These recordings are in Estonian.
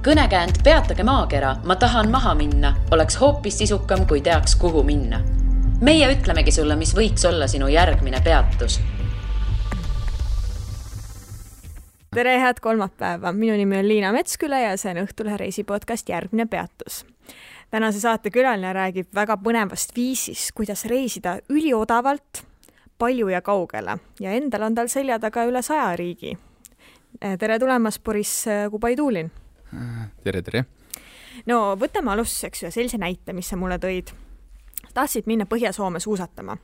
Kõnekäänd Peatage maakera, ma tahan maha minna, oleks hoopis sisukam, kui teaks, kuhu minna. Meie ütlemegi sulle, mis võiks olla sinu järgmine peatus. Tere, head kolmapäeva. Minu nimi on Liina Metsküla ja see on Õhtulehe reisipodcast Järgmine peatus. Tänase saate külaline räägib väga põnevast viisist, kuidas reisida üliodavalt, palju ja kaugele. Ja endal on tal selja taga üle 100 riigi. Tere tulemast, Boris Kubaiduulin. Tere. No võtame alustuseks ühe sellise näite, mis sa mulle tõid. Tahtsid minna Põhja-Soome suusatama.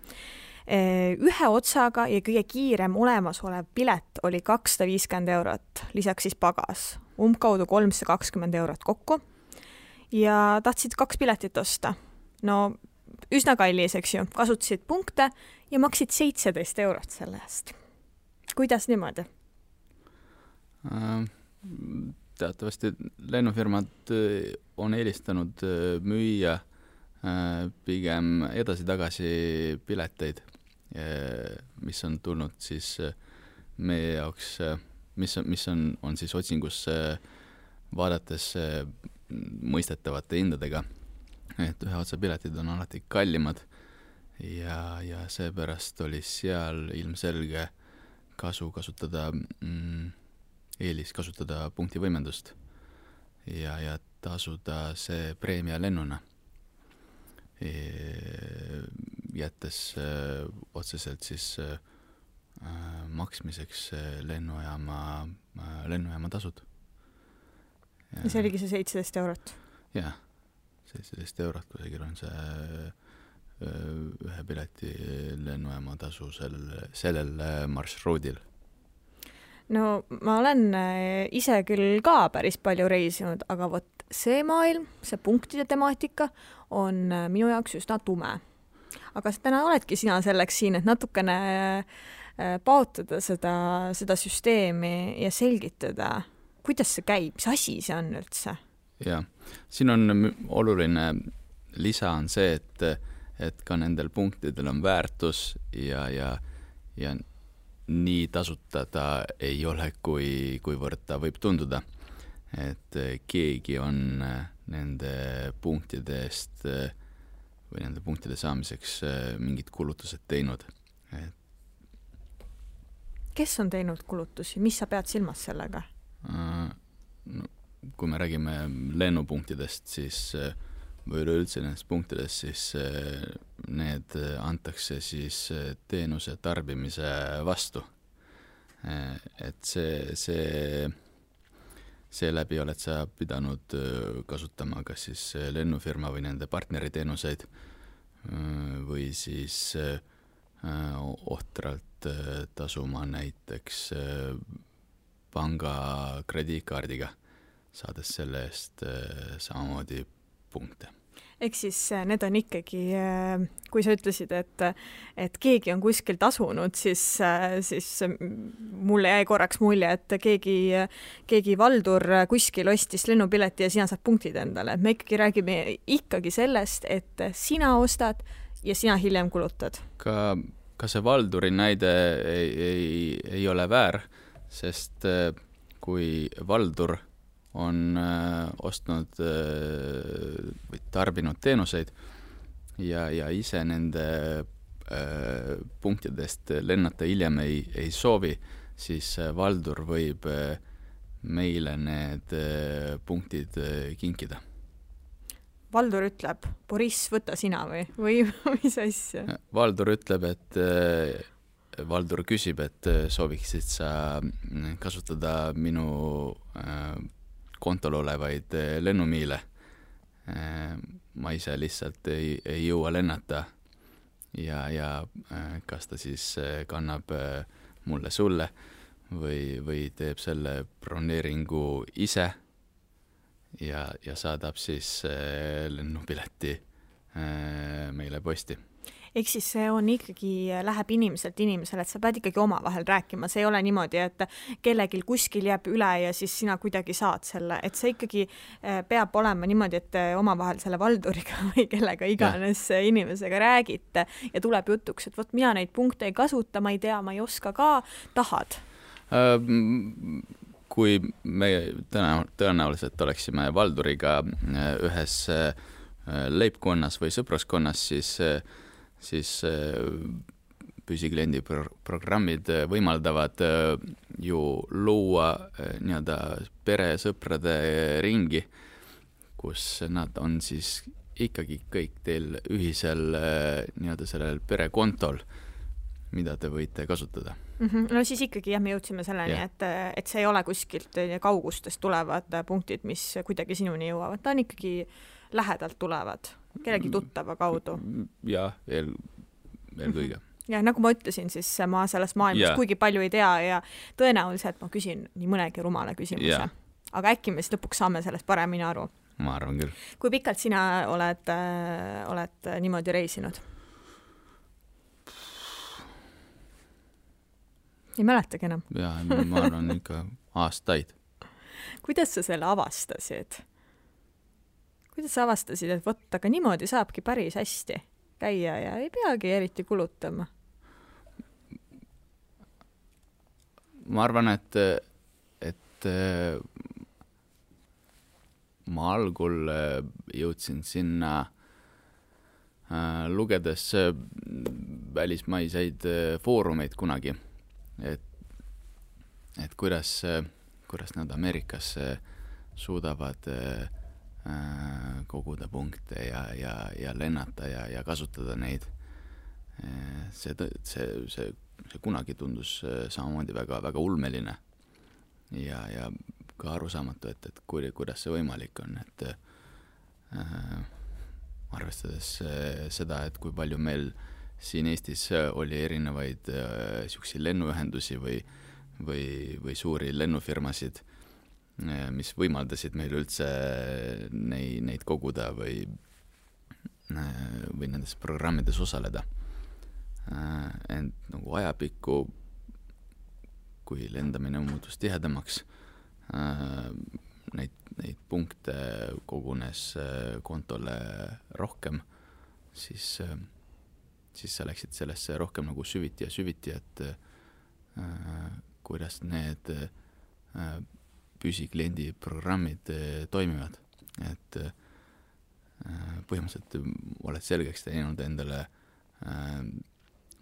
Ühe otsaga ja kõige kiirem olemasolev pilet oli 250 €, lisaks siis pagas. Umbkaudu 320 € kokku. Ja tahtsid 2 piletit osta. No üsna kallis, eks ju. Kasutasid punkte ja maksid 17 € selle eest. Kuidas niimoodi? Teatavasti lennufirmad on eelistanud müüa pigem edasi-tagasi pileteid, mis on tulnud siis meie jaoks, mis on siis otsingus vaadates mõistetavate hindadega. Et ühe otsa piletid on alati kallimad ja seepärast oli seal ilmselge eelis kasutada punktivõimendust ja tasuda see preemia lennuna, jättes otseselt siis maksmiseks lennujaama tasud. Ja see oligi see 17 €? Jah, 17 € kusagil on see ühe pileti lennujaama tasu sellel marsruudil. No ma olen ise küll ka päris palju reisinud, aga vot see maailm, see punktide temaatika on minu jaoks üsna tume. Aga täna oledki sina selleks siin, et natukene paotada seda süsteemi ja selgitada, kuidas see käib, mis asi see on üldse? Ja, siin on oluline lisa on see, et ka nendel punktidel on väärtus ja nii tasutada ei ole, kuivõrd ta võib tunduda. Et keegi on nende punktide eest või nende punktide saamiseks mingid kulutused teinud. Kes on teinud kulutusi? Mis sa pead silmas sellega? No, kui me räägime lennupunktidest, siis või üleüldse nendest punktidest, siis need antakse siis teenuse tarbimise vastu. Et see läbi oled sa pidanud kasutama kas siis lennufirma või nende partneriteenuseid või siis ohtralt tasuma näiteks panga krediitkaardiga, saades selle eest samamoodi punkte. Ehk siis need on ikkagi, kui sa ütlesid, et keegi on kuskil tasunud, siis mulle jäi korraks mulje, et keegi valdur kuskil ostis lennupileti ja sina saad punktid endale. Me ikkagi räägime ikkagi sellest, et sina ostad ja sina hiljem kulutad. Ka see valduri näide ei ole väär, sest kui valdur on ostnud või tarbinud teenuseid ja ise nende punktidest lennata hiljem ei soovi, siis valdur võib meile need punktid kinkida. Valdur ütleb, Boris, võta sina või mis asja? Valdur ütleb, Valdur küsib, et sooviksid sa kasutada minu kontol olevaid lennumiile. Ma ise lihtsalt ei jõua lennata ja kas ta siis kannab mulle sulle või teeb selle broneeringu ise ja saadab siis lennupileti meile posti. Ehk siis see on ikkagi, läheb inimeselt inimesele, et sa pead ikkagi omavahel rääkima. See ei ole niimoodi, et kellelgi kuskil jääb üle ja siis sina kuidagi saad selle. Et see ikkagi peab olema niimoodi, et omavahel selle valduriga või kellega iganes inimesega räägite ja tuleb jutuks, et võt, mina neid punkte ei kasuta, ma ei tea, ma ei oska ka, tahad? kui me tõenäoliselt oleksime Valduriga ühes leibkonnas või sõpruskonnas, siis püsikliendi programmid võimaldavad ju luua nii-öelda peresõprade ringi, kus nad on siis ikkagi kõik teil ühisel nii-öelda sellel perekontol, mida te võite kasutada. No siis ikkagi jah, me jõudsime selleni, et see ei ole kuskilt kaugustest tulevad punktid, mis kuidagi sinuni jõuavad. Ta on ikkagi lähedalt tulevad, kellegi tuttava kaudu. Ja, eelkõige. Ja nagu ma ütlesin, siis ma sellest maailmast kuigi palju ei tea ja tõenäoliselt ma küsin nii mõnegi rumala küsimuse. Aga äkki me siis lõpuks saame sellest paremini aru. Ma arvan küll. Kui pikalt sina oled niimoodi reisinud? Ei mäletagi enam. Ja, ma arvan ikka aastaid. Kuidas sa selle avastasid? Kuidas sa avastasid, et võtta, aga niimoodi saabki päris hästi käia ja ei peagi eriti kulutama? Ma arvan, et ma algul jõudsin sinna lugedes välismaiseid foorumeid kunagi, et kuidas nad Ameerikas suudavad koguda punkte ja lennata ja kasutada neid. See kunagi tundus samamoodi väga ulmeline ja ka arusaamatu, et kuidas see võimalik on, et arvestades seda, et kui palju meil siin Eestis oli erinevaid siukseid lennuühendusi või suuri lennufirmasid, mis võimaldasid meil üldse neid koguda või nendes programmides osaleda. Ent nagu ajapikku, kui lendamine muutus tihedamaks, neid punkte kogunes kontole rohkem, siis sa läksid sellesse rohkem nagu süviti, et kuidas need püsikliendi programmid toimivad. Et põhimõtteliselt oled selgeks teinud endale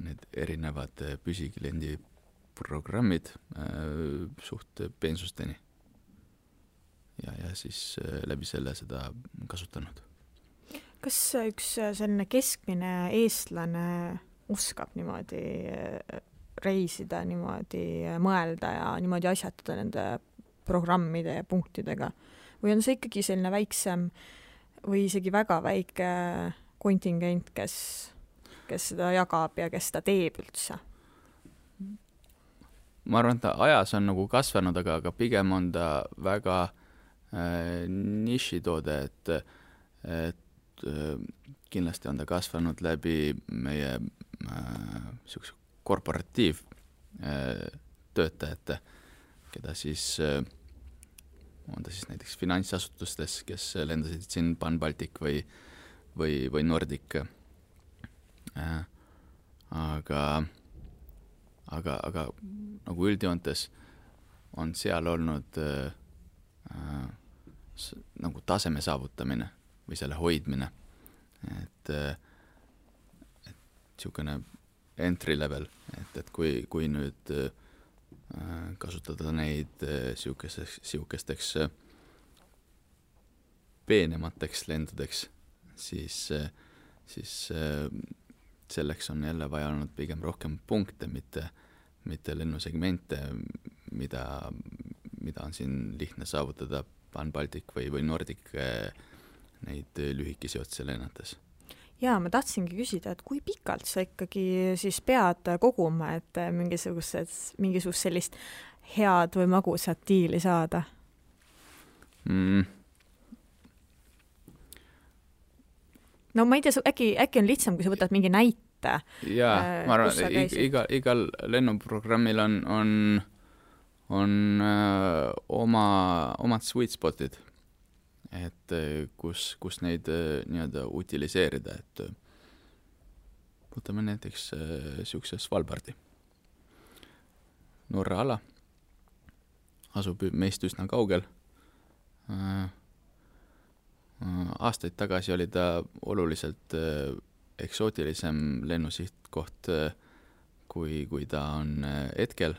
need erinevad püsikliendi programmid suht peensusteni. Ja siis läbi selle seda kasutanud. Kas üks selline keskmine eestlane oskab niimoodi reisida, niimoodi mõelda ja niimoodi asjatada nende programmide ja punktidega? Või on see ikkagi selline väiksem või isegi väga väike kontingent, kes seda jagab ja kes seda teeb üldse? Ma arvan, et ta ajas on nagu kasvanud, aga pigem on ta väga nišitoode, et kindlasti on ta kasvanud läbi meie siukse korporatiiv töötajate, keda siis on ta siis näiteks finantsasutustes, kes lendasid siin Pan Baltic või Nordic. Aga nagu üldjoontes on seal olnud nagu taseme saavutamine või selle hoidmine, et siukene entry level, et kui nüüd kasutada neid siukesteks peenemateks lendudeks, siis selleks on jälle vaja olnud pigem rohkem punkte, mitte lennusegmente, mida on siin lihtne saavutada Pan Baltic või Nordic neid lühikesi otse lennates. Jaa, ma tahtsingi küsida, et kui pikalt sa ikkagi siis pead koguma, et mingisugust sellist head või magusat diili saada? No ma ei tea, äkki on lihtsam, kui sa võtad mingi näite. Jaa, ma arvan, igal lennuprogrammil on omad sweet spotid, et kus neid nii-öelda utiliseerida, et võtame näiteks siukse Svalbardi. Norra ala, asub meist üsna kaugel. Aastaid tagasi oli ta oluliselt eksootilisem lennusihtkoht, kui ta on hetkel.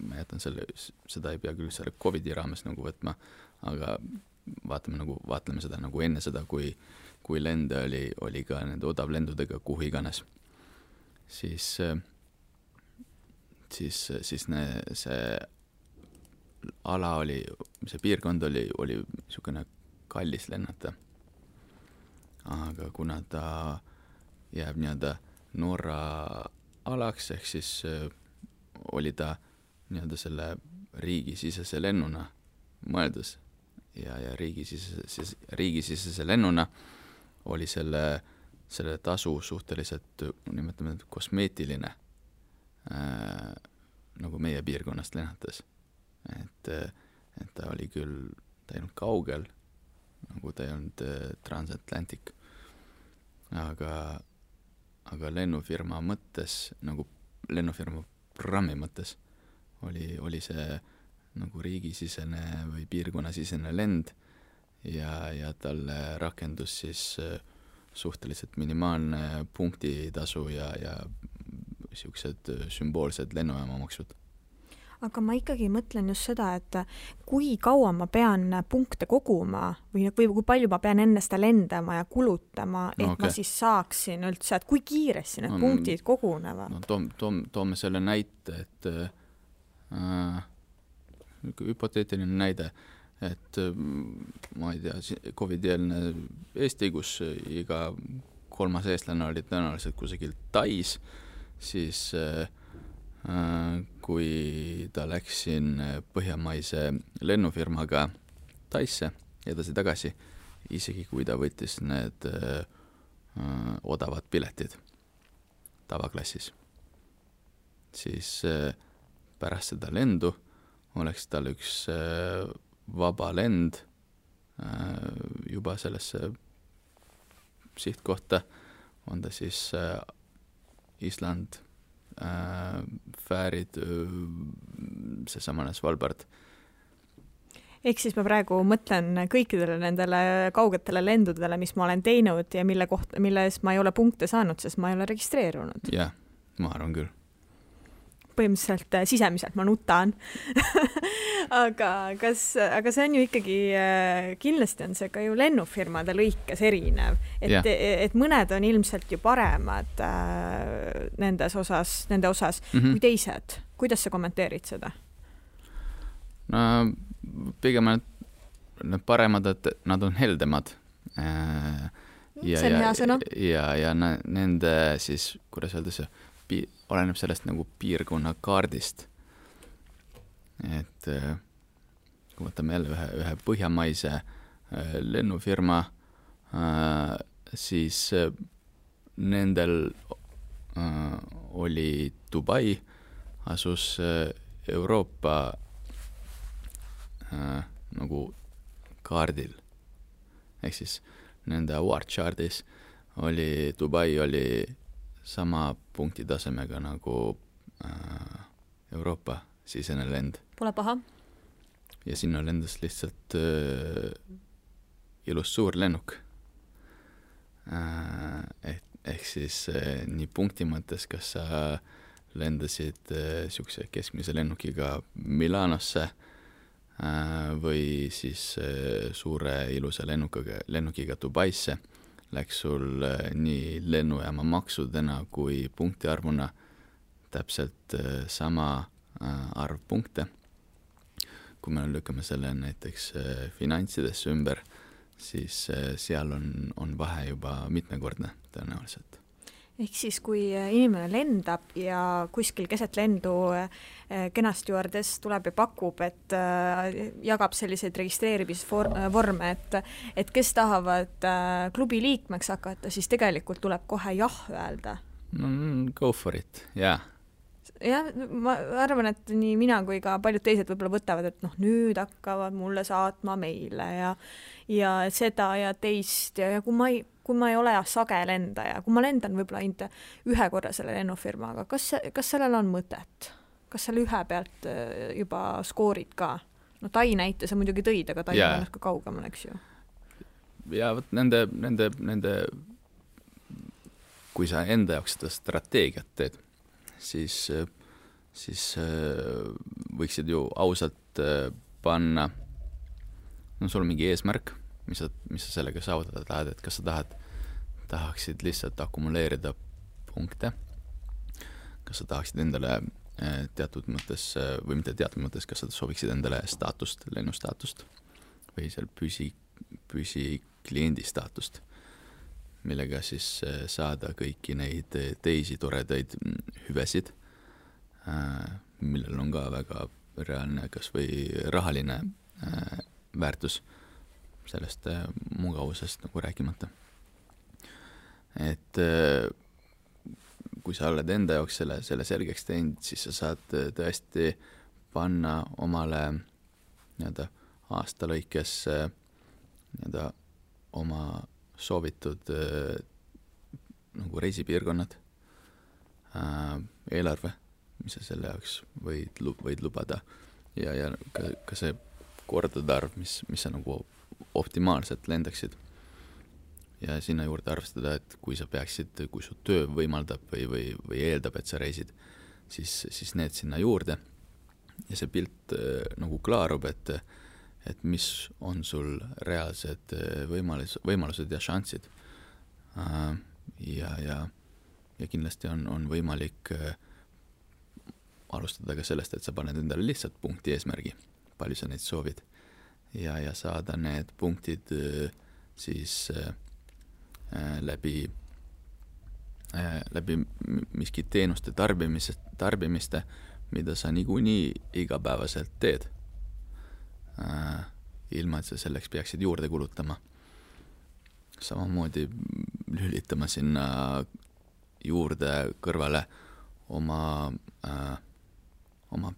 Ma jätan seda ei pea küll selle COVID-i raames nagu võtma, aga vaatleme seda nagu enne seda, kui lende oli ka nende odavlendudega kuhu iganes. Siis see ala see piirkond oli niisugune kallis lennata. Aga kuna ta jääb nii-öelda Norra alaks, ehk siis oli ta nii-öelda selle riigisisese lennuna mõeldus ja riigisisese lennuna oli selle tasu suhteliselt, nimetame kosmeetiline, nagu meie piirkonnast lennates. Et ta oli küll, ta ei olnud kaugel, nagu ta ei olnud transatlantic, aga lennufirma mõttes, nagu lennufirma programmi mõttes oli see nagu riigisisene või piirkonnasisene lend ja talle rakendus siis suhteliselt minimaalne punktitasu ja niisugused sümboolsed lennujaamamaksud. Aga ma ikkagi mõtlen just seda, et kui kaua ma pean punkte koguma või kui palju ma pean enne seda lendama ja kulutama, et ma siis saaksin üldse, et kui kiiresti need punktid kogunevad? Toome selle näite, et hüpoteetiline näide, et ma ei tea, COVID-eelne Eesti, kus iga 3. eestlane oli tõenäoliselt kusagil Tais, siis kui ta läks siin põhjamaise lennufirmaga Taisse edasi-tagasi, isegi kui ta võttis need odavad piletid tavaklassis, siis pärast seda lendu oleks tal üks vaba lend juba sellesse sihtkohta, on ta siis Island, Fäärid, seesamane Svalbard. Ehk siis ma praegu mõtlen kõikidele nendele kaugetele lendudele, mis ma olen teinud ja milles ma ei ole punkte saanud, sest ma ei ole registreerunud. Jah, ma arvan küll. Põhimõtteliselt sisemiselt ma nutan. aga see on ju ikkagi, kindlasti on see ka ju lennufirmade lõikes erinev, et mõned on ilmselt ju paremad nende osas kui teised. Kuidas sa kommenteerid seda? No pigem need paremad, et nad on heldemad. See on hea sõna. Ja nende siis, kuidas öelda see, oleneb sellest nagu piirkonna kaardist. Et kui võtame jälle ühe põhjamaise lennufirma, siis nendel oli Dubai, asus Euroopa nagu kaardil. Ehk siis nende award chartis oli Dubai oli sama punktitasemega nagu Euroopa sisene lend. Pole paha. Ja sinna lendas lihtsalt ilus suur lennuk. Ehk siis nii punkti mõttes, kas sa lendasid siukse keskmise lennukiga Milanosse või siis suure ilusa lennukiga Dubaisse, läks sul nii lennujaama maksudena kui punktiarvuna täpselt sama arv punkte. Kui me lükkame selle näiteks finantsidesse ümber, siis seal on vahe juba mitmekordne tõenäoliselt. Ehk siis, kui inimene lendab ja kuskil keset lendu kenasti juures tuleb ja pakub, et jagab selliseid registreerimisvorme, et kes tahavad klubi liikmeks hakata, siis tegelikult tuleb kohe jah öelda. Go for it, jah. Jah, ma arvan, et nii mina kui ka paljud teised võib-olla võtavad, et nüüd hakkavad mulle saatma meile ja seda ja teist ja kui ma ei ole sage lendaja, kui ma lendan võib-olla ainult ühe korra selle lennufirmaga, kas sellel on mõtet? kas seal ühe pealt juba skoorid ka? No Tai näite sa muidugi tõid, aga Tai on ka kaugemal, eks ju. Ja võt nende kui sa enda jaoks seda strateegiat teed, siis võiksid ju ausalt panna, no sul on mingi eesmärk, mis sa sellega saavutada tahad, et kas sa tahaksid lihtsalt akumuleerida punkte, kas sa tahaksid endale teatud mõttes, või mitte teatud mõttes, kas sa sooviksid endale staatust, lennustaatust või seal püsi kliendi staatust, millega siis saada kõiki neid teisi toredaid hüvesid, millel on ka väga reaalne kas või rahaline väärtus sellest mugavusest nagu rääkimata. Et kui sa oled enda jaoks selle selgeks teinud, siis sa saad tõesti panna omale nii-öelda aasta lõikes nii-öelda oma soovitud nagu reisipiirkonnad, eelarve, mis sa selle jaoks võid lubada ja ka see kordade arv, mis sa nagu optimaalselt lendaksid. Ja sinna juurde arvestada, et kui su töö võimaldab või eeldab, et sa reisid, siis need sinna juurde ja see pilt nagu klaarub, et mis on sul reaalsed võimalused ja šansid. Ja kindlasti on võimalik alustada ka sellest, et sa paned endale lihtsalt punkti eesmärgi, palju sa neid soovid ja saada need punktid siis läbi miski teenuste tarbimiste, mida sa niikuinii igapäevaselt teed, ilma et sa selleks peaksid juurde kulutama. Samamoodi lülitama sinna juurde kõrvale oma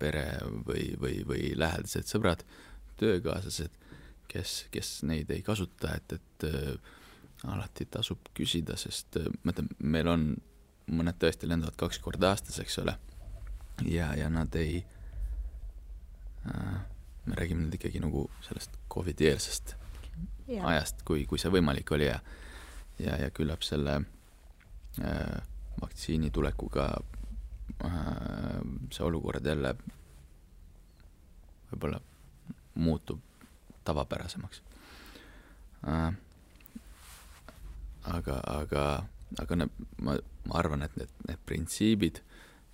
pere või lähedased sõbrad, töökaaslased, kes neid ei kasuta, et alati tasub küsida, sest meil on mõned tõesti lendavad 2 korda aastas, eks ole, ja nad ei me räägime nüüd ikkagi nagu sellest COVID-eelsest ajast, kui see võimalik oli ja küllap selle vaktsiini tulekuga see olukord jälle võib-olla muutub tavapärasemaks. Aga ma arvan, et need printsiibid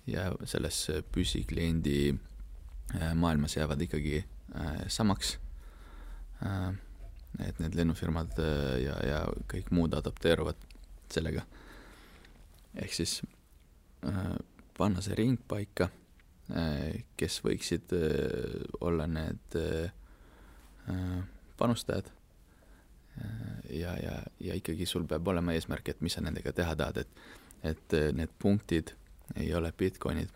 ja selles püsikliendi maailmas jäävad ikkagi samaks, et need lennufirmad ja kõik muud adapteeruvad sellega. Ehk siis panna see ring paika, kes võiksid olla need panustajad ja ikkagi sul peab olema eesmärk, et mis sa nendega teha tahad, et need punktid ei ole bitcoinid,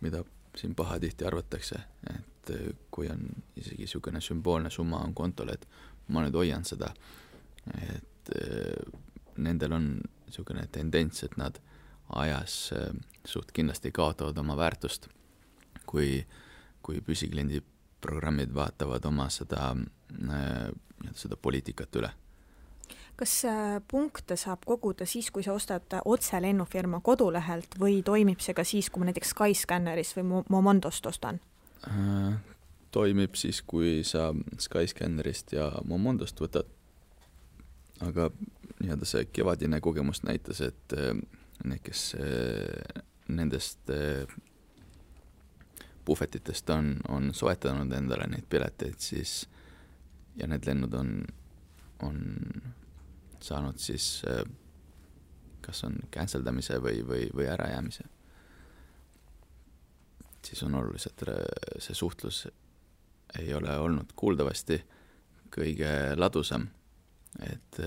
mida siin pahatihti arvatakse, et kui on isegi niisugune sümboolne summa on kontol, et ma nüüd hoian seda, et nendel on niisugune tendents, et nad ajas suht kindlasti kaotavad oma väärtust, kui püsikliendi programmid vaatavad oma seda poliitikat üle. Kas punkte saab koguda siis, kui sa ostad otse lennufirma kodulehelt või toimib see ka siis, kui ma näiteks Skyscannerist või Momondost ostan? Toimib siis, kui sa Skyscannerist ja Momondost võtad, aga nii-öelda see kevadine kogemus näitas, et need, kes nendest puhvetitest on soetanud endale neid pileteid, siis ja need lennud on saanud siis kas on canceldamise või ärajäämise, siis on oluliselt see suhtlus ei ole olnud kuuldavasti kõige ladusam, et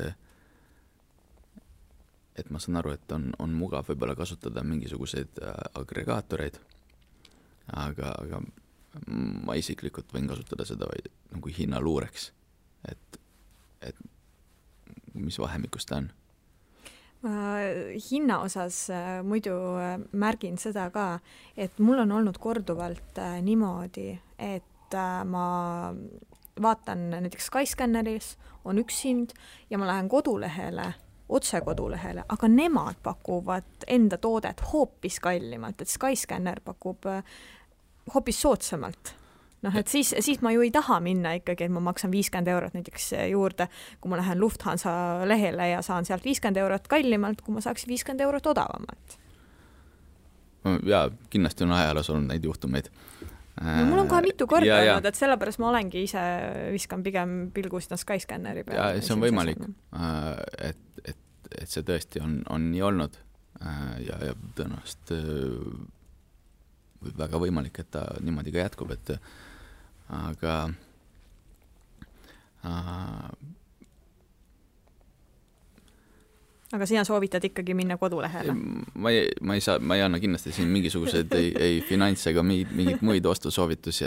ma saan aru, et on mugav võib-olla kasutada mingisuguseid agregaatoreid, aga ma isiklikult võin kasutada seda vaid nagu hinnaluureks, et mis vahemikus ta on. Hinna osas muidu märgin seda ka, et mul on olnud korduvalt niimoodi, et ma vaatan näiteks Skyscanneris on üks hind ja ma lähen kodulehele, otse kodulehele, aga nemad pakuvad enda toodet hoopis kallimalt, et Skyscanner pakub hoopis soodsamalt. Et siis ma ju ei taha minna ikkagi, et ma maksan 50 eurot näiteks juurde, kui ma lähen Lufthansa lehele ja saan sealt 50 eurot kallimalt, kui ma saaksin 50 eurot odavamalt. Ja kindlasti on ajaloos olnud neid juhtumeid. No, mul on kohe mitu korda olnud, et sellepärast ma olengi ise viskan pigem pilgu sinna Skyscanneri peale. Ja see on võimalik, et see tõesti on nii olnud ja tõenäoliselt väga võimalik, et ta niimoodi ka jätkub, aga sina soovitad ikkagi minna kodulehele? Ma ei anna kindlasti siin mingisuguseid ei finants ega mingid muid ostusoovitusi,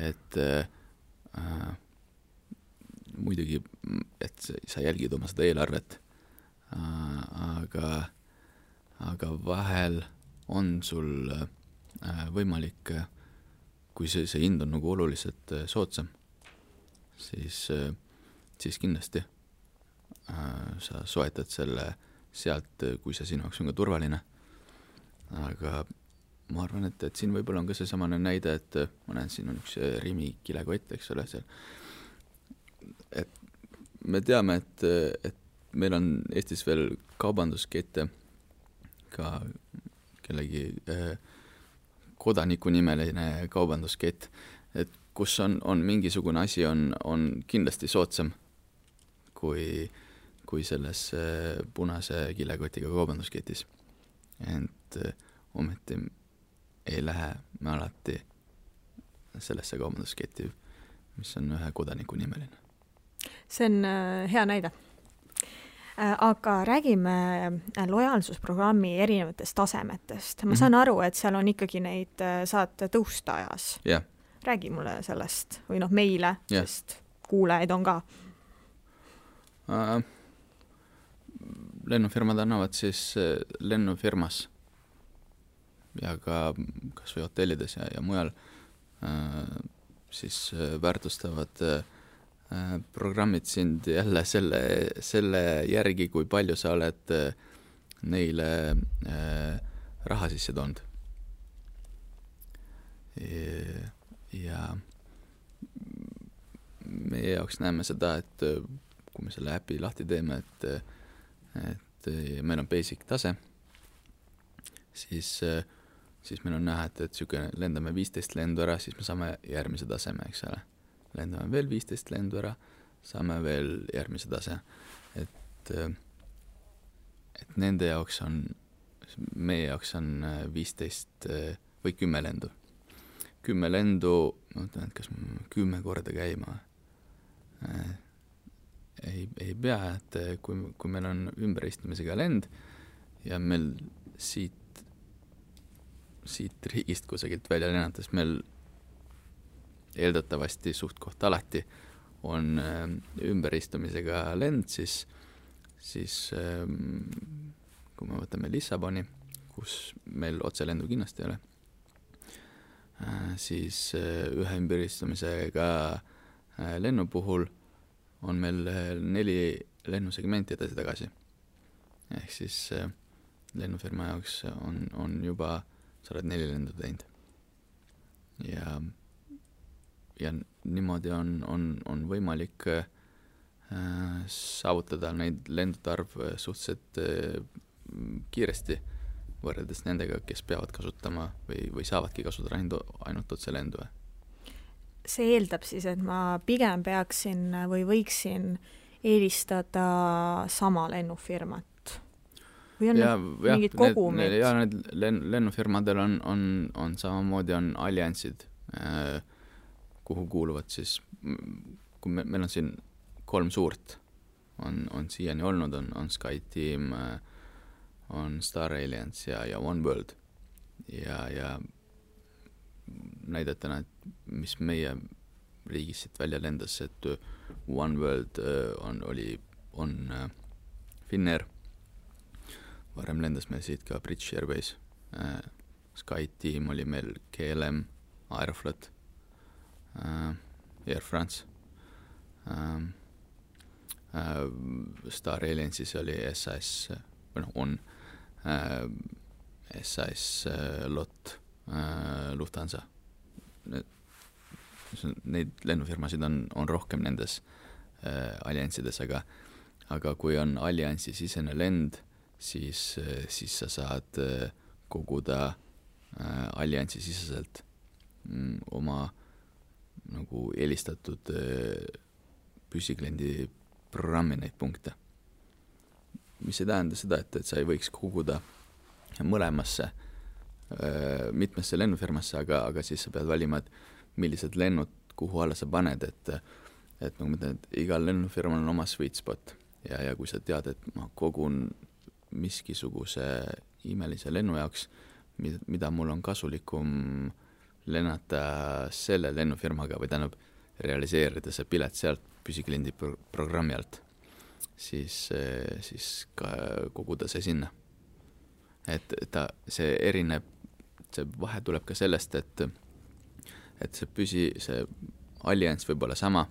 et muidugi, et sa jälgid oma seda eelarvet, aga vahel on sul võimalik, kui see hind on nagu oluliselt soodsam, siis kindlasti sa soetad selle sealt, kui see sinu jaoks on ka turvaline. Aga ma arvan, et siin võib-olla on ka see samane näide, et ma näen, siin on üks Rimi kilekott, eks ole, seal. Et me teame, et meil on Eestis veel kaubanduskette ka kellegi kodanikunimeline kaubanduskett, et kus on mingisugune asi on kindlasti soodsam kui selles punase kilekotiga kaubandusketis. Ent ometi ei lähe me alati sellesse kaubandusketti, mis on ühe kodanikunimeline. See on hea näide. Aga räägime lojaalsusprogrammi erinevatest tasemetest. Ma saan aru, et seal on ikkagi neid saad tõusta ajas. Yeah. Räägi mulle sellest või meile, sest kuulajaid on ka. Lennufirmad annavad siis lennufirmas ja ka kas või hotellides ja mujal siis väärtustavad programmid sind jälle selle järgi, kui palju sa oled neile raha sisse toonud. Ja meie jaoks näeme seda, et kui me selle äpi lahti teeme, et meil on basic tase, siis meil on näha, et lendame 15 lendu ära, siis me saame järgmise taseme, eks ole. Lendame veel 15 lendu ära, saame veel järgmise tase. Et nende jaoks meie jaoks on 15 või 10 lendu. 10 lendu, ma mõtlen, et kas 10 korda käima ei pea, et kui meil on ümberistumisega lend ja meil siit riigist kusagilt välja lennates meil eeldatavasti suht koht alati on ümberistumisega lend, siis kui me võtame Lissaboni, kus meil otselendu kindlasti ei ole, siis ühe ümberistumisega lennu puhul on meil 4 lennusegmenti edasi-tagasi. Ehk siis lennufirma jaoks on juba, sa oled 4 lendu teinud. Ja niimoodi on võimalik saavutada neid lendude arv suhteliselt kiiresti võrreldes nendega, kes peavad kasutama või saavadki kasutada ainult otse lendu. See eeldab siis, et ma pigem peaksin või võiksin eelistada sama lennufirmat? Või on mingid kogumid? Need lennufirmadel on samamoodi on alliansid, kuhu kuuluvad siis, kui meil on siin 3 suurt, on siiani olnud, on SkyTeam, on Star Alliance ja OneWorld. Ja näidetena, et mis meie riigis siit välja lendas, et OneWorld on Finnair varem lendas meil siit ka British Airways, SkyTeam oli meil, KLM, Aeroflot, Air France, Star Alliance'is oli SAS, on SAS, LOT, Lufthansa. Neid lennufirmasid on rohkem nendes alliansides, aga kui on alliansi sisene lend, siis sa saad koguda alliansi siseselt oma nagu eelistatud püsikliendi programmi neid punkte. Mis ei tähenda seda, et sa ei võiks koguda mõlemasse, mitmesse lennufirmasse, aga siis sa pead valima, et millised lennud, kuhu alla sa paned, et nagu ma ütlen, et igal lennufirmal on oma sweet spot ja kui sa tead, et ma kogun miskisuguse imelise lennu jaoks, mida mul on kasulikum lennata selle lennufirmaga või tähendab realiseerida see pilet sealt püsikliendi programmi alt, siis ka koguda see sinna. Et see erineb, see vahe tuleb ka sellest, et see allianss võib olla sama,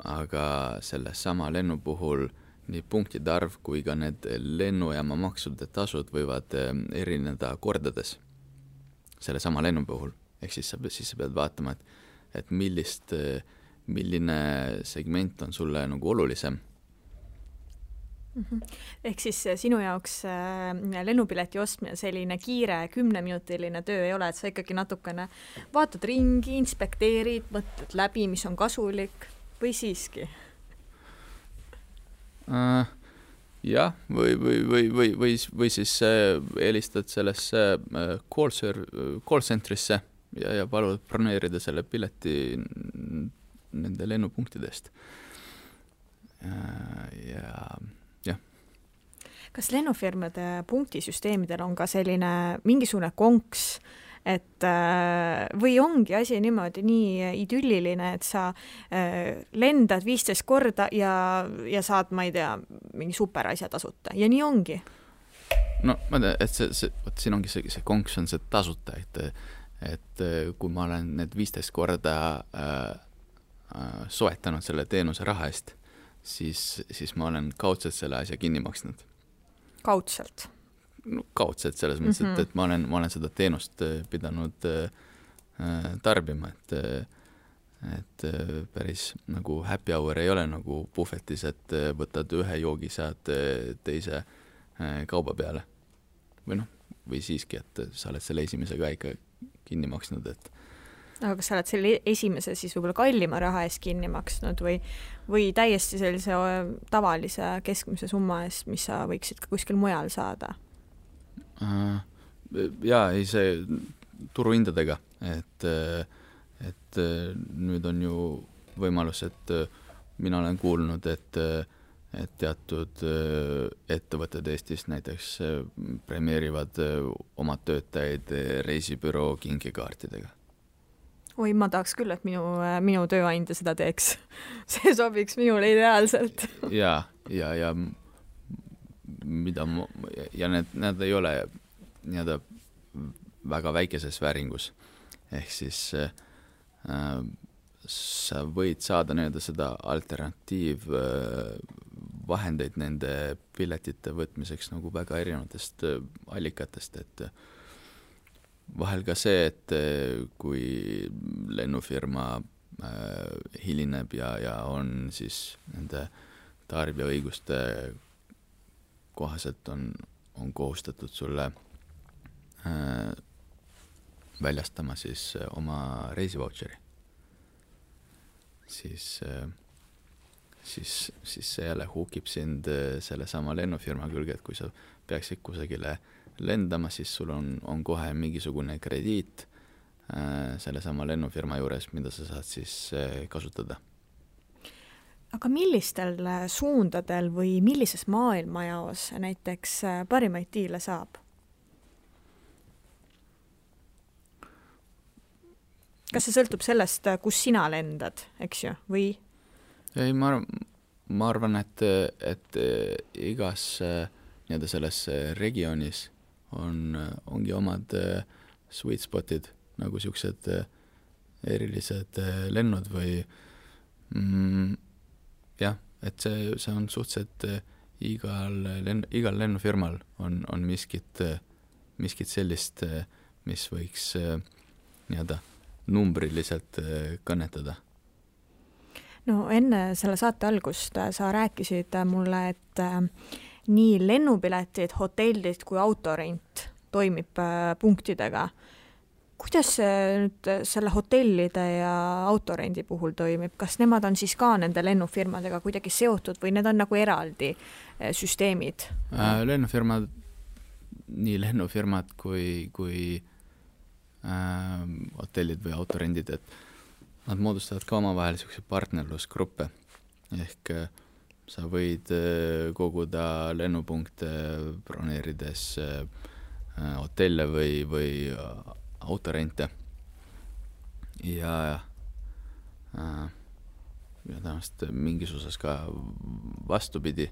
aga selle sama lennu puhul nii punktide arv kui ka need lennujaama maksude tasud võivad erineda kordades selle sama lennu puhul. Ehk siis sa pead vaatama, et milline segment on sulle nagu olulisem. Ehk siis sinu jaoks lennupileti ostmine selline kiire 10-minutiline töö ei ole, et sa ikkagi natukene vaatad ringi, inspekteerid, mõtled läbi, mis on kasulik või siiski? Jah, või siis eelistad sellesse call centrisse ja palud broneerida selle pileti nende lennupunktidest. Ja kas lennufirmade punktisüsteemidel on ka selline mingisugune konks, et või ongi asi niimoodi nii idülliline, et sa lendad 15 korda ja saad, ma ei tea, mingi superasja tasuta ja nii ongi? No ma tean, et siin ongi see konks on see tasuta, et kui ma olen need 15 korda soetanud selle teenuse raha eest, siis ma olen kaudselt selle asja kinni maksnud. Kaudselt? No, kaudselt selles mõttes, et ma olen seda teenust pidanud tarbima, et päris nagu happy hour ei ole nagu puhvetis, et võtad ühe joogi, saad teise kauba peale. Või siiski, et sa oled selle esimese ka ikka kinni maksnud, et aga kas sa oled selle esimese siis võib-olla kallima raha eest kinni maksnud või täiesti sellise tavalise keskmise summa eest, mis sa võiksid ka kuskil mujal saada? Jaa, ei see turuhindadega, et nüüd on ju võimalus, et mina olen kuulnud, et teatud ettevõtted Eestis näiteks premeerivad oma töötajaid reisibüroo kinkekaartidega. Oi, ma tahaks küll, et minu tööandja seda teeks. See sobiks minule ideaalselt. Ja need ei ole nii-öelda väga väikeses vääringus. Ehk siis sa võid saada nii-öelda seda alternatiiv vahendeid nende piletite võtmiseks nagu väga erinevatest allikatest, et vahel ka see, et kui lennufirma hilineb ja on siis nende tarbijaõiguste kohaselt on kohustatud sulle väljastama siis oma reisivautšeri, siis see jälle hukib sind selle sama lennufirma külge, et kui sa peaksid kusagile lendama, siis sul on kohe mingisugune krediit selle sama lennufirma juures, mida sa saad siis kasutada. Aga millistel suundadel või millises maailmajaos näiteks parimaid diile saab? Kas see sõltub sellest, kus sina lendad, eks ju, või? Ei, ma arvan, et igas nii-öelda selles regioonis ongi omad sweet spotid, nagu siuksed erilised lennud või jah, et see on suhteliselt igal lennufirmal on miskit sellist, mis võiks nii-öelda numbriliselt kõnetada. No enne selle saate algust sa rääkisid mulle, et nii lennupiletid, hotellid kui autorent toimib punktidega. Kuidas see nüüd selle hotellide ja autorendi puhul toimib? Kas nemad on siis ka nende lennufirmadega kuidagi seotud või need on nagu eraldi süsteemid? Lennufirmad, nii lennufirmad kui hotellid või autorendid, et nad moodustavad ka omavahel selliseid partnerlusgruppe. Ehk sa võid koguda lennupunkte broneerides hotelle või autorente ja tõenäoliselt mingis osas ka vastupidi,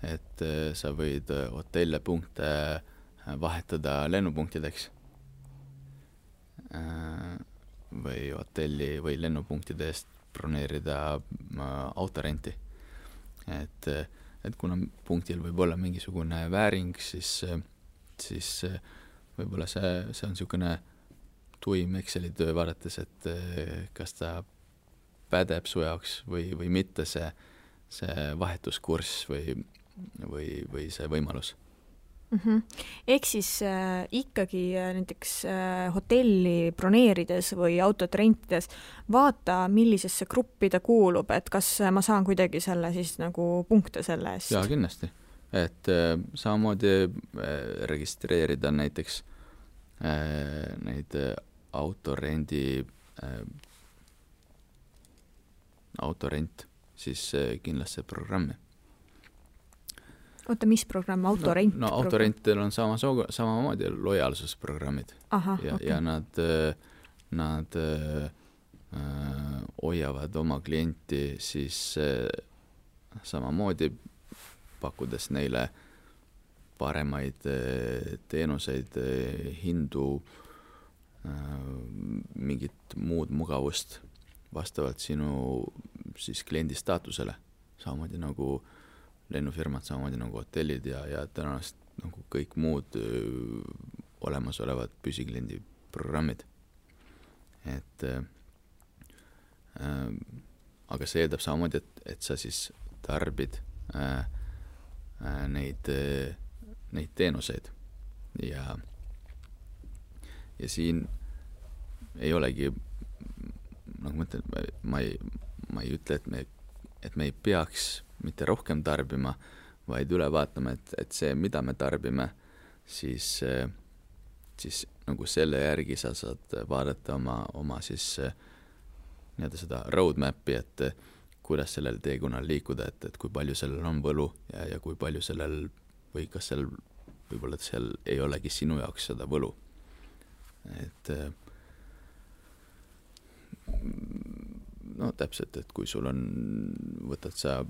et sa võid hotelle punkte vahetada lennupunktideks või hotelli või lennupunktide eest broneerida autorenti. Et kuna punktil võib olla mingisugune vääring, siis võib-olla see on niisugune tuim Exceli töö vaadates, et kas ta pädeb su jaoks või mitte see vahetuskurss või see võimalus. Ehk siis ikkagi näiteks hotelli broneerides või autot rentides vaata, millisesse gruppi ta kuulub, et kas ma saan kuidagi selle siis nagu punkte selle eest? Jaa, kindlasti. Et samamoodi registreerida näiteks neid autorent, siis kindlasti programmi. Oota, mis programm? Autorent? No autorentil on samamoodi lojaalsusprogrammid. Ja nad hoiavad oma klienti siis samamoodi pakkudes neile paremaid teenuseid, hindu, mingit muud mugavust vastavalt sinu siis kliendi staatusele. Samamoodi nagu lennufirmad, samamoodi nagu hotellid ja tõenäoliselt nagu kõik muud olemasolevad püsikliendi programmid. Aga see eeldab samamoodi, et sa siis tarbid neid teenuseid ja siin ei olegi, nagu ma ütlen, ma ei ütle, et me ei peaks mitte rohkem tarbima, vaid üle vaatama, et see, mida me tarbime, siis nagu selle järgi sa saad vaadata oma siis nii-öelda seda roadmapi, et kuidas sellel teekonnal liikuda, et kui palju sellel on võlu ja kui palju sellel või kas seal võib-olla seal ei olegi sinu jaoks seda võlu. No täpselt, et kui sul on, võtad sa,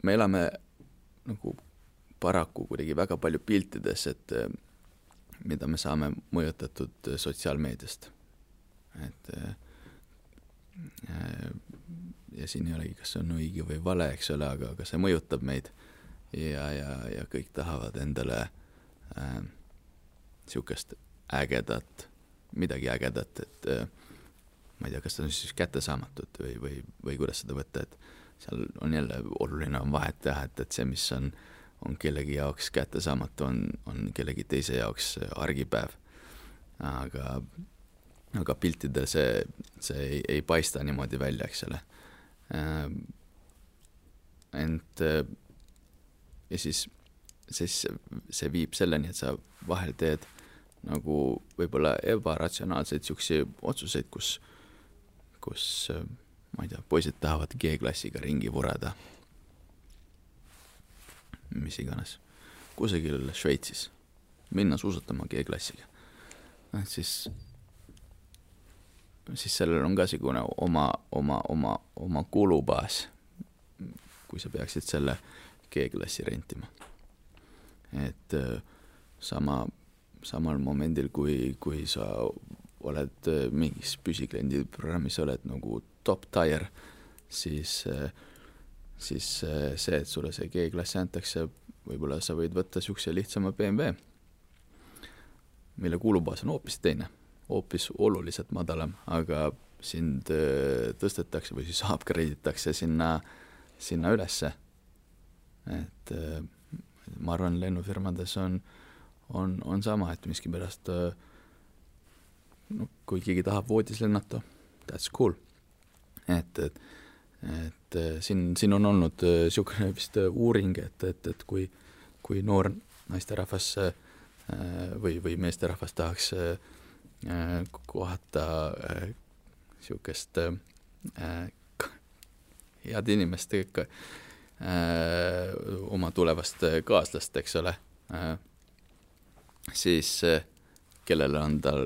me elame nagu paraku kuidagi väga palju piltides, et mida me saame mõjutatud sotsiaalmeediast. Ja siin ei olegi, kas see on õige või vale, eks ole, aga see mõjutab meid ja kõik tahavad endale siukest ägedat, midagi ägedat, et ma ei tea, kas ta on siis kättesaamatut või kuidas seda võtta, et seal on jälle oluline on vahet teha, et see, mis on kellegi jaoks kättesaamatu, on kellegi teise jaoks argipäev. Aga piltidel see ei paista niimoodi välja, eks ole. Ja siis see viib selleni, et sa vahel teed nagu võib-olla ebaratsionaalseid siuksi otsuseid, kus ma ei tea, poisid tahavad G-klassiga ringi vurada. Mis iganes. Kusagil Šveitsis. Minna suusatama G-klassiga. Siis sellel on ka sigune oma kulubaas, kui sa peaksid selle G-klassi rentima. et samal momendil, kui sa oled mingis püsikliendi programmis, oled nagu top tier, siis see, et sulle see G-klassi antakse, võib-olla sa võid võtta siukse lihtsama BMW, mille kulubaas on hoopis teine, hoopis oluliselt madalam, aga sind tõstetakse või siis upgrade'itakse sinna ülesse. Et ma arvan, lennufirmades on sama, et miskipärast kui keegi tahab voodis lennata, that's cool. Et siin on olnud siukene vist uuring, et kui noor naisterahvas või meesterahvas tahaks kohata siukest head inimest oma tulevast kaaslast, eks ole, siis kellele on tal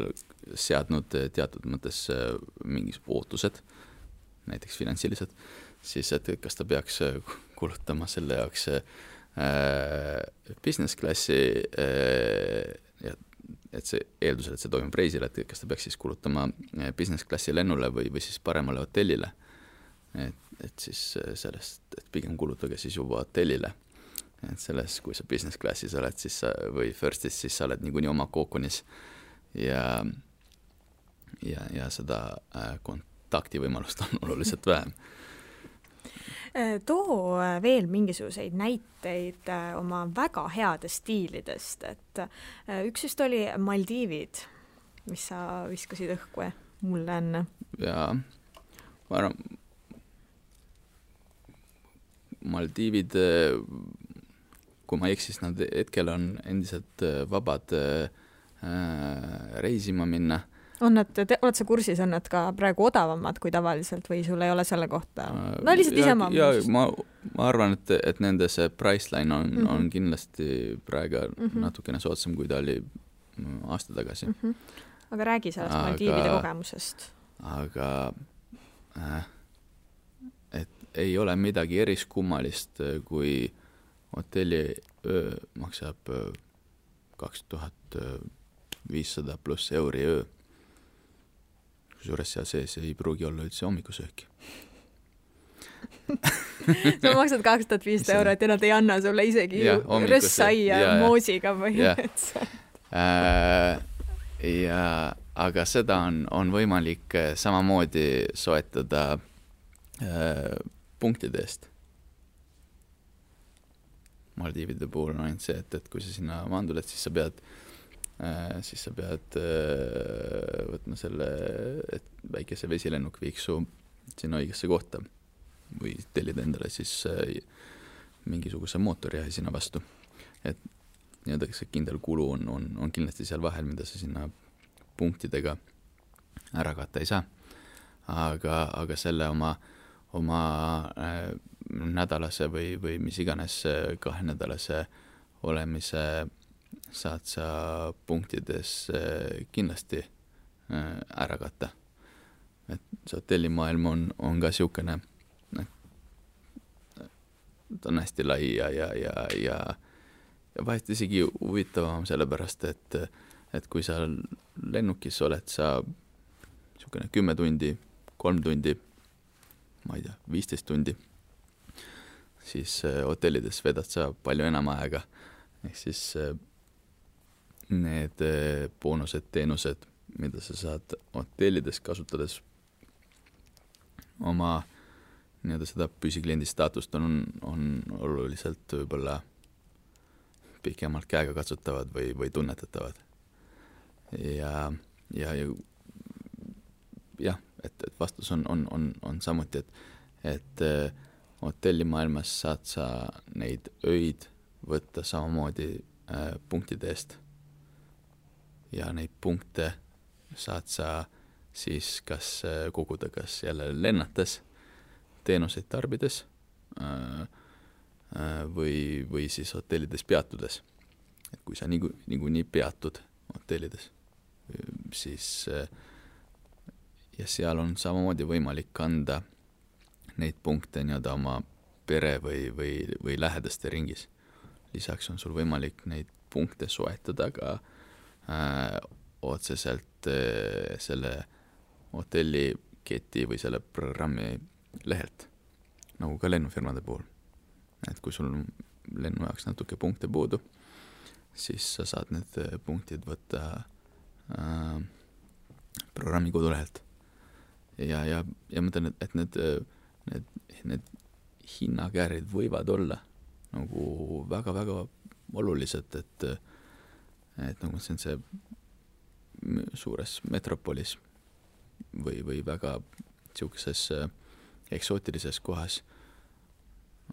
seadnud teatud mõttes mingis ootused, näiteks finantsilised, siis et kas ta peaks kulutama selle jaoks business klassi, et see eeldusel, et see toimub reisil, et kas ta peaks siis kulutama business klassi lennule või siis paremale hotellile. Et siis sellest, et pigem kulutage siis juba hotellile. Et selles, kui sa business klassis oled siis või firstis, siis sa oled niikuinii oma kookonis ja seda kontaktivõimalust on oluliselt vähem. Too veel mingisuguseid näiteid oma väga headest stiilidest, et üks just oli Maldiivid, mis sa viskasid õhku mulle enne. Jaa, ma arvan, Maldiivid, kui ma eksis, nad hetkel on endiselt vabad reisima minna. Oled sa kursis, on nad ka praegu odavamad kui tavaliselt või sul ei ole selle kohta? No lihtsalt isema. Ja ma arvan, et nende see priceline on kindlasti praegu natukene soodsam, kui ta oli aasta tagasi. Aga räägi sellest Maldiivide kogemusest. Aga et ei ole midagi eriskummalist, kui hotelli öö maksab 2500 pluss euri öö. Kusjuures seal sees ei pruugi olla üldse hommikusööki. Sa maksad 2500 eurot ja nad ei anna sulle isegi rössaia moosiga põhimõtteliselt. Aga seda on võimalik samamoodi soetada punktide eest. Maldiivide puhul on ainult see, et kui sa sinna maanduled, siis sa pead võtma selle, et väikese vesilennuk viiks su sinna õigesse kohta või tellida endale siis mingisuguse mootoriahi sinna vastu. Et nii-öelda see kindel kulu on kindlasti seal vahel, mida sa sinna punktidega ära katta ei saa. Aga selle oma nädalase või mis iganes 2 nädalase olemise saad sa punktides kindlasti ära katta. Et see hotellimaailm on ka siukene, ta on hästi lai ja vahest isegi huvitavam sellepärast, et kui sa lennukis oled sa siukene 10 tundi, 3 tundi, ma ei tea, 15 tundi, siis hotellides vedad sa palju enam aega. Ehk siis need boonused, teenused, mida sa saad hotellides kasutades oma nii-öelda seda püsikliendi staatust on oluliselt võib-olla pikemalt käega katsutavad või tunnetatavad. Ja et vastus on samuti, et hotellimaailmas saad sa neid öid võtta samamoodi punktide eest. Ja neid punkte saad sa siis kas koguda kas jälle lennates, teenuseid tarbides või siis hotellides peatudes. Et kui sa niikuinii peatud hotellides, siis ja seal on samamoodi võimalik kanda neid punkte nii-öelda oma pere või lähedaste ringis. lisaks on sul võimalik neid punkte soetada ka otseselt selle hotelliketi või selle programmi lehelt, nagu ka lennufirmade puhul. Et kui sul lennu jaoks natuke punkte puudu, siis sa saad need punktid võtta programmi kodulehelt. Ja ma mõtlen, et need hinnakäärid võivad olla nagu väga-väga olulised, et nagu see suures metropolis või väga siukeses eksootilises kohas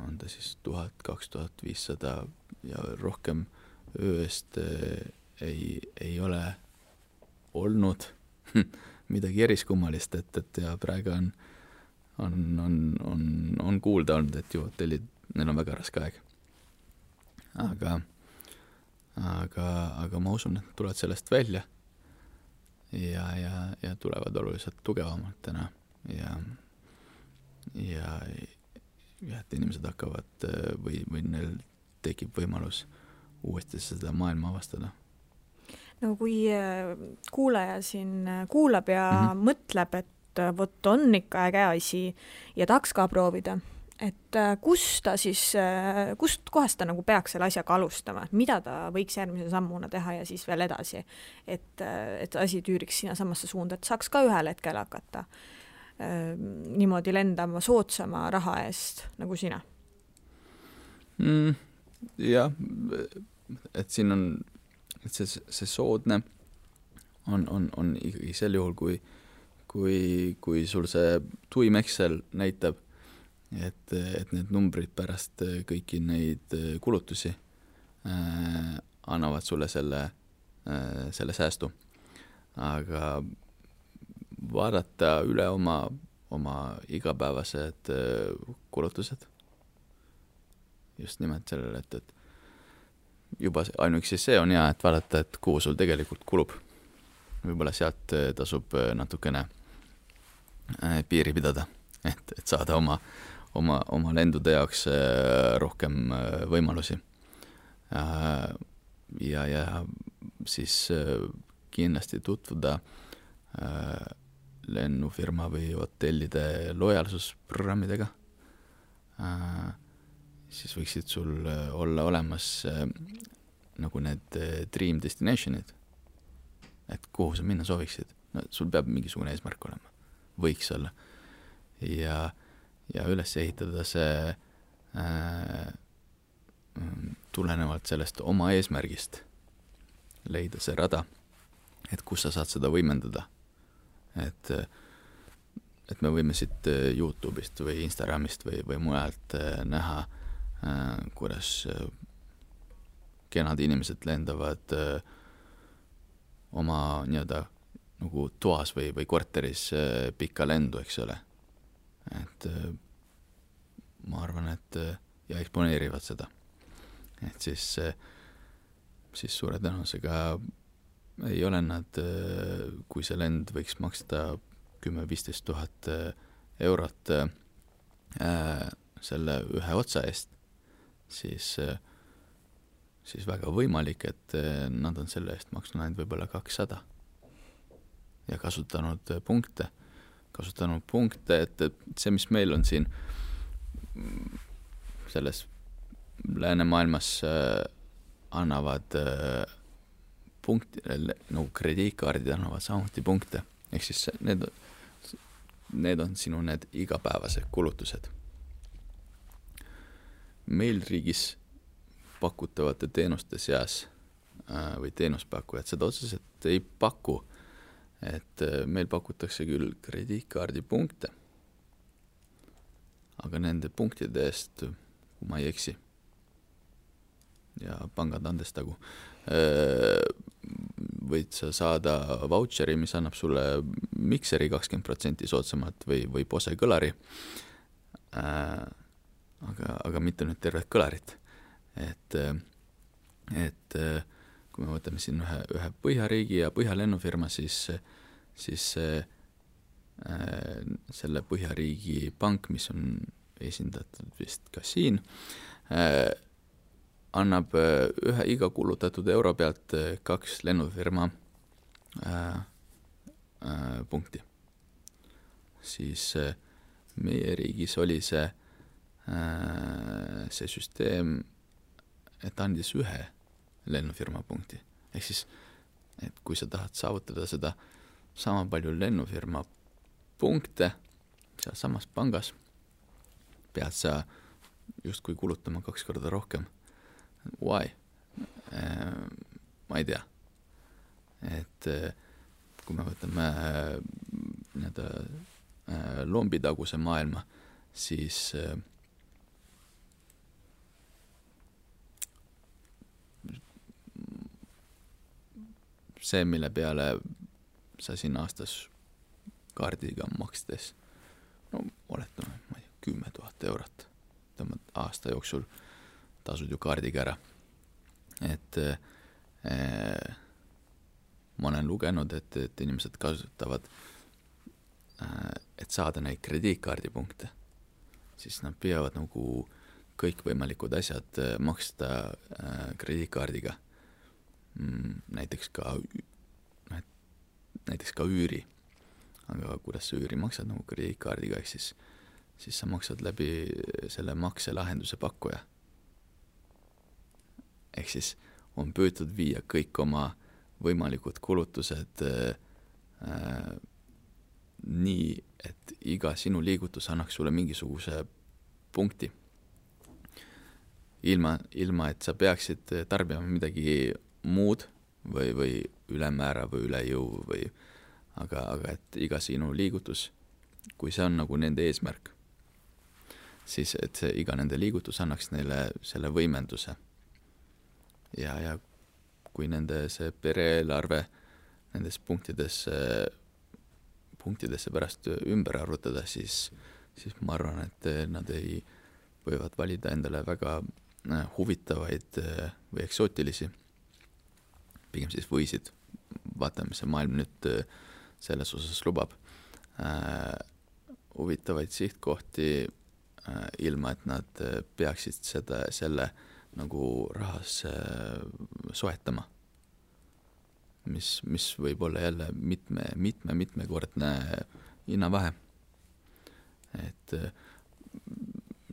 on ta siis 1000-2500 ja rohkem öö eest ei ole olnud midagi eriskummalist, et ja praegu on kuulda olnud, et ju hotellid, neil on väga raske aeg. Aga ma usun, et tulevad sellest välja ja tulevad oluliselt tugevamalt täna ja et inimesed hakkavad või neil tekib võimalus uuesti seda maailma avastada. No kui kuulaja siin kuulab ja mõtleb, et vot on ikka äge asi ja tahaks ka proovida, et kust kohast ta nagu peaks selle asjaga alustama, mida ta võiks järgmise sammuna teha ja siis veel edasi, et asi tüüriks sinna samasse suunda, et saaks ka ühel hetkel hakata niimoodi lendama soodsama raha eest nagu sina? Jah, et siin on et see soodne on ikkagi sel juhul, kui sul see tuim Excel näitab, et need numbrid pärast kõiki neid kulutusi annavad sulle selle säästu. Aga vaadata üle oma igapäevased kulutused just nimelt sellele, et juba ainuüksi see on hea, et vaadata, et kuhu sul tegelikult kulub. Võib-olla sealt tasub natukene piiri pidada, et saada oma lendude jaoks rohkem võimalusi. Ja siis kindlasti tutvuda lennufirma või hotellide lojaalsusprogrammidega. Siis võiksid sul olla olemas nagu need dream destinationid, et kuhu sa minna sooviksid. No, sul peab mingisugune eesmärk olema, võiks olla. Ja üles ehitada see tulenevalt sellest oma eesmärgist, leida see rada, et kus sa saad seda võimendada. Et me võime siit YouTube'ist või Instagramist või mujalt näha, kuidas kenad inimesed lendavad oma nii-öelda nagu toas või korteris pikka lendu, eks ole. Et ma arvan, et ja eksponeerivad seda. Et siis suure tõenäosusega ei ole nad, kui see lend võiks maksta 10-15 000 eurot selle ühe otsa eest, siis väga võimalik, et nad on selle eest maksnud ainult võib-olla 200 ja kasutanud punkte, et see, mis meil on siin selles läänemaailmas annavad punkti, nagu krediitkaardid annavad samuti punkte, ehk siis need on sinu need igapäevased kulutused. Meil riigis pakutavate teenuste seas või teenuspakkujad seda otseselt ei paku, et meil pakutakse küll krediitkaardi punkte, aga nende punktide eest, kui ma ei eksi, ja pangad andestagu, võid sa saada vautšeri, mis annab sulle mikseri 20% soodsamalt või Bose kõlari, aga mitte nüüd tervet kõlarit. Et kui me võtame siin ühe Põhjariigi ja Põhjalennufirma, siis selle Põhjariigi pank, mis on esindatud vist ka siin, annab ühe iga kulutatud euro pealt 2 lennufirma punkti. Siis meie riigis oli see süsteem, et andis 1 lennufirma punkti. Ehk siis, et kui sa tahad saavutada seda sama palju lennufirma punkte seal samas pangas, pead sa justkui kulutama 2 korda rohkem. Why? Ma ei tea. Et kui me võtame lombitaguse maailma, siis see, mille peale sa siin aastas kaardiga makstes, no oletame, ma ei tea, 10 000 eurot, tõmbad aasta jooksul tasud ju kaardiga ära. Et ma olen lugenud, et inimesed kasutavad, et saada neid krediitkaardipunkte, siis nad peavad nagu kõikvõimalikud asjad maksta krediitkaardiga. Näiteks ka üüri. Aga kuidas sa üüri maksad nagu krediitkaardiga, ehk siis sa maksad läbi selle makselahenduse pakkuja. Ehk siis on püütud viia kõik oma võimalikud kulutused nii, et iga sinu liigutus annaks sulle mingisuguse punkti. Ilma, et sa peaksid tarbima midagi muud või ülemäära või üle jõu või aga et iga sinu liigutus, kui see on nagu nende eesmärk, siis et see iga nende liigutus annaks neile selle võimenduse. Ja kui nende see pereelarve nendes punktidesse pärast ümber arvutada, siis ma arvan, et nad võivad valida endale väga huvitavaid või eksootilisi, pigem siis võisid, vaatame, mis see maailm nüüd selles osas lubab, huvitavaid sihtkohti, ilma et nad peaksid selle nagu rahas soetama, mis võib olla jälle mitmekordne hinnavahe. Et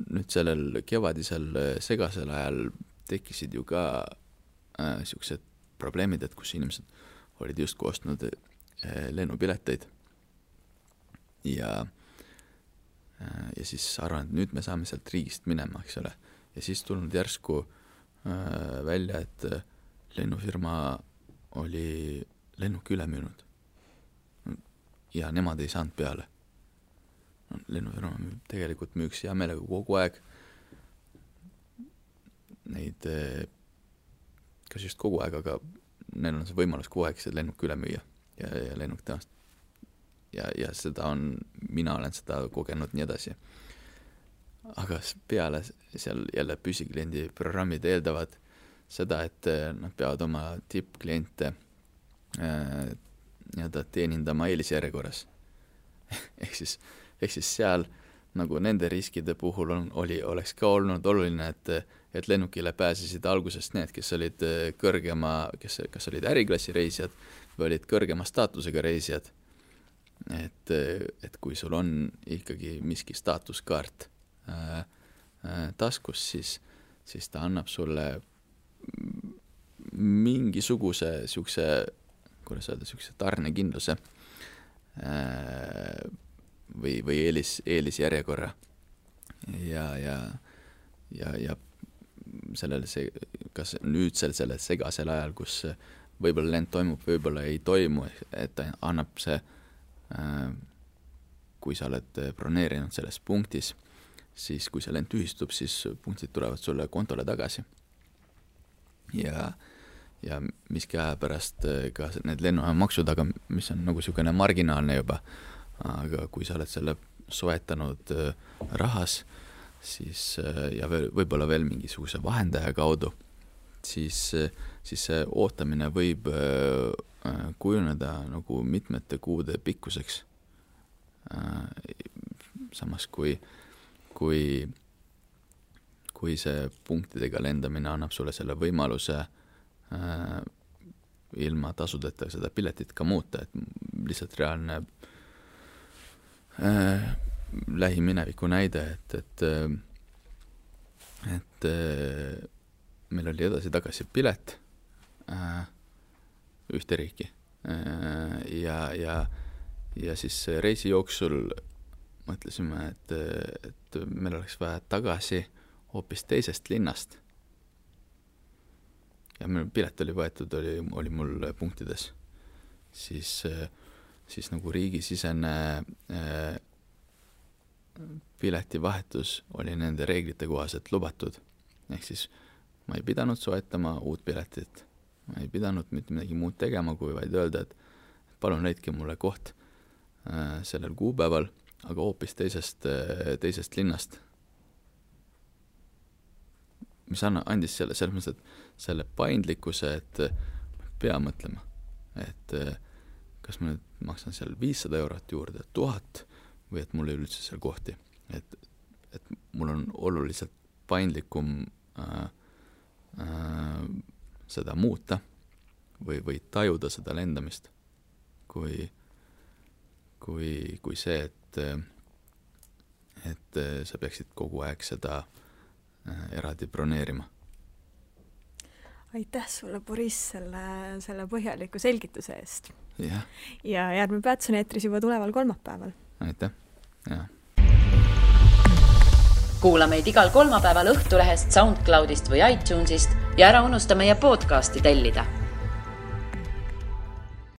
nüüd sellel kevadisel segasel ajal tekkisid ju ka siuksed probleemid, et kus inimesed olid just ostnud lennupileteid ja siis arvan, et nüüd me saame sealt riigist minema, eks ole. Ja siis tulnud järsku välja, et lennufirma oli lennuki üle müünud ja nemad ei saanud peale. Lennufirma tegelikult müüks hea meelega kogu aeg neid, kas just kogu aeg, aga neil on see võimalus kogu aeg see lennuk üle müüa ja lennuk tõenäoliselt ja seda mina olen seda kogenud nii edasi. Aga peale seal jälle püsikliendi programmid eeldavad seda, et nad peavad oma tippkliente teenindama eelisjärjekorras. Ehk siis seal nagu nende riskide puhul oleks ka olnud oluline, et lennukile pääsesid algusest need, kes olid kas olid äriklassi reisijad või olid kõrgema staatusega reisijad. Et kui sul on ikkagi miski staatuskaart taskus, siis ta annab sulle mingisuguse siukse tarnekindluse või eelisjärjekorra ja sellele kas nüüd selle segasel ajal, kus võib-olla lend toimub, võib-olla ei toimu, et ta annab see, kui sa oled broneerinud selles punktis, siis kui see lend tühistub, siis punktid tulevad sulle kontole tagasi. Ja miski aja pärast ka need lennumaksud, aga mis on nagu siukene marginaalne juba, aga kui sa oled selle soetanud rahas, siis ja võib-olla veel mingisuguse vahendaja kaudu, siis see ootamine võib kujuneda nagu mitmete kuude pikkuseks. Samas kui kui see punktidega lendamine annab sulle selle võimaluse ilma tasudeta seda piletit ka muuta, et lihtsalt reaalne lähimineviku näide, et meil oli edasi-tagasi pilet ühte riiki ja siis reisi jooksul mõtlesime, et meil oleks vaja tagasi hoopis teisest linnast. Ja meil pilet oli võetud, oli mul punktides. Siis nagu riigisisene piletivahetus oli nende reeglite kohaselt lubatud. Ehk siis ma ei pidanud soetama uut piletit. Ma ei pidanud mitte midagi muud tegema, kui vaid öelda, et palun leidke mulle koht sellel kuupäeval, aga hoopis teisest linnast. Mis andis selles mõttes, et selle paindlikkuse, et pea mõtlema, et kas ma nüüd maksan seal 500 eurot juurde, 1000 või et mul ei üldse seal kohti. Et mul on oluliselt paindlikum seda muuta või tajuda seda lendamist kui see, et sa peaksid kogu aeg seda eraldi broneerima. Aitäh sulle, Boris, selle põhjaliku selgituse eest. Ja järgmine Peats on eetris juba tuleval kolmapäeval. Aitäh, ja. Kuula meid igal kolmapäeval Õhtulehest, SoundCloudist või iTunesist ja ära unusta meie podcasti tellida.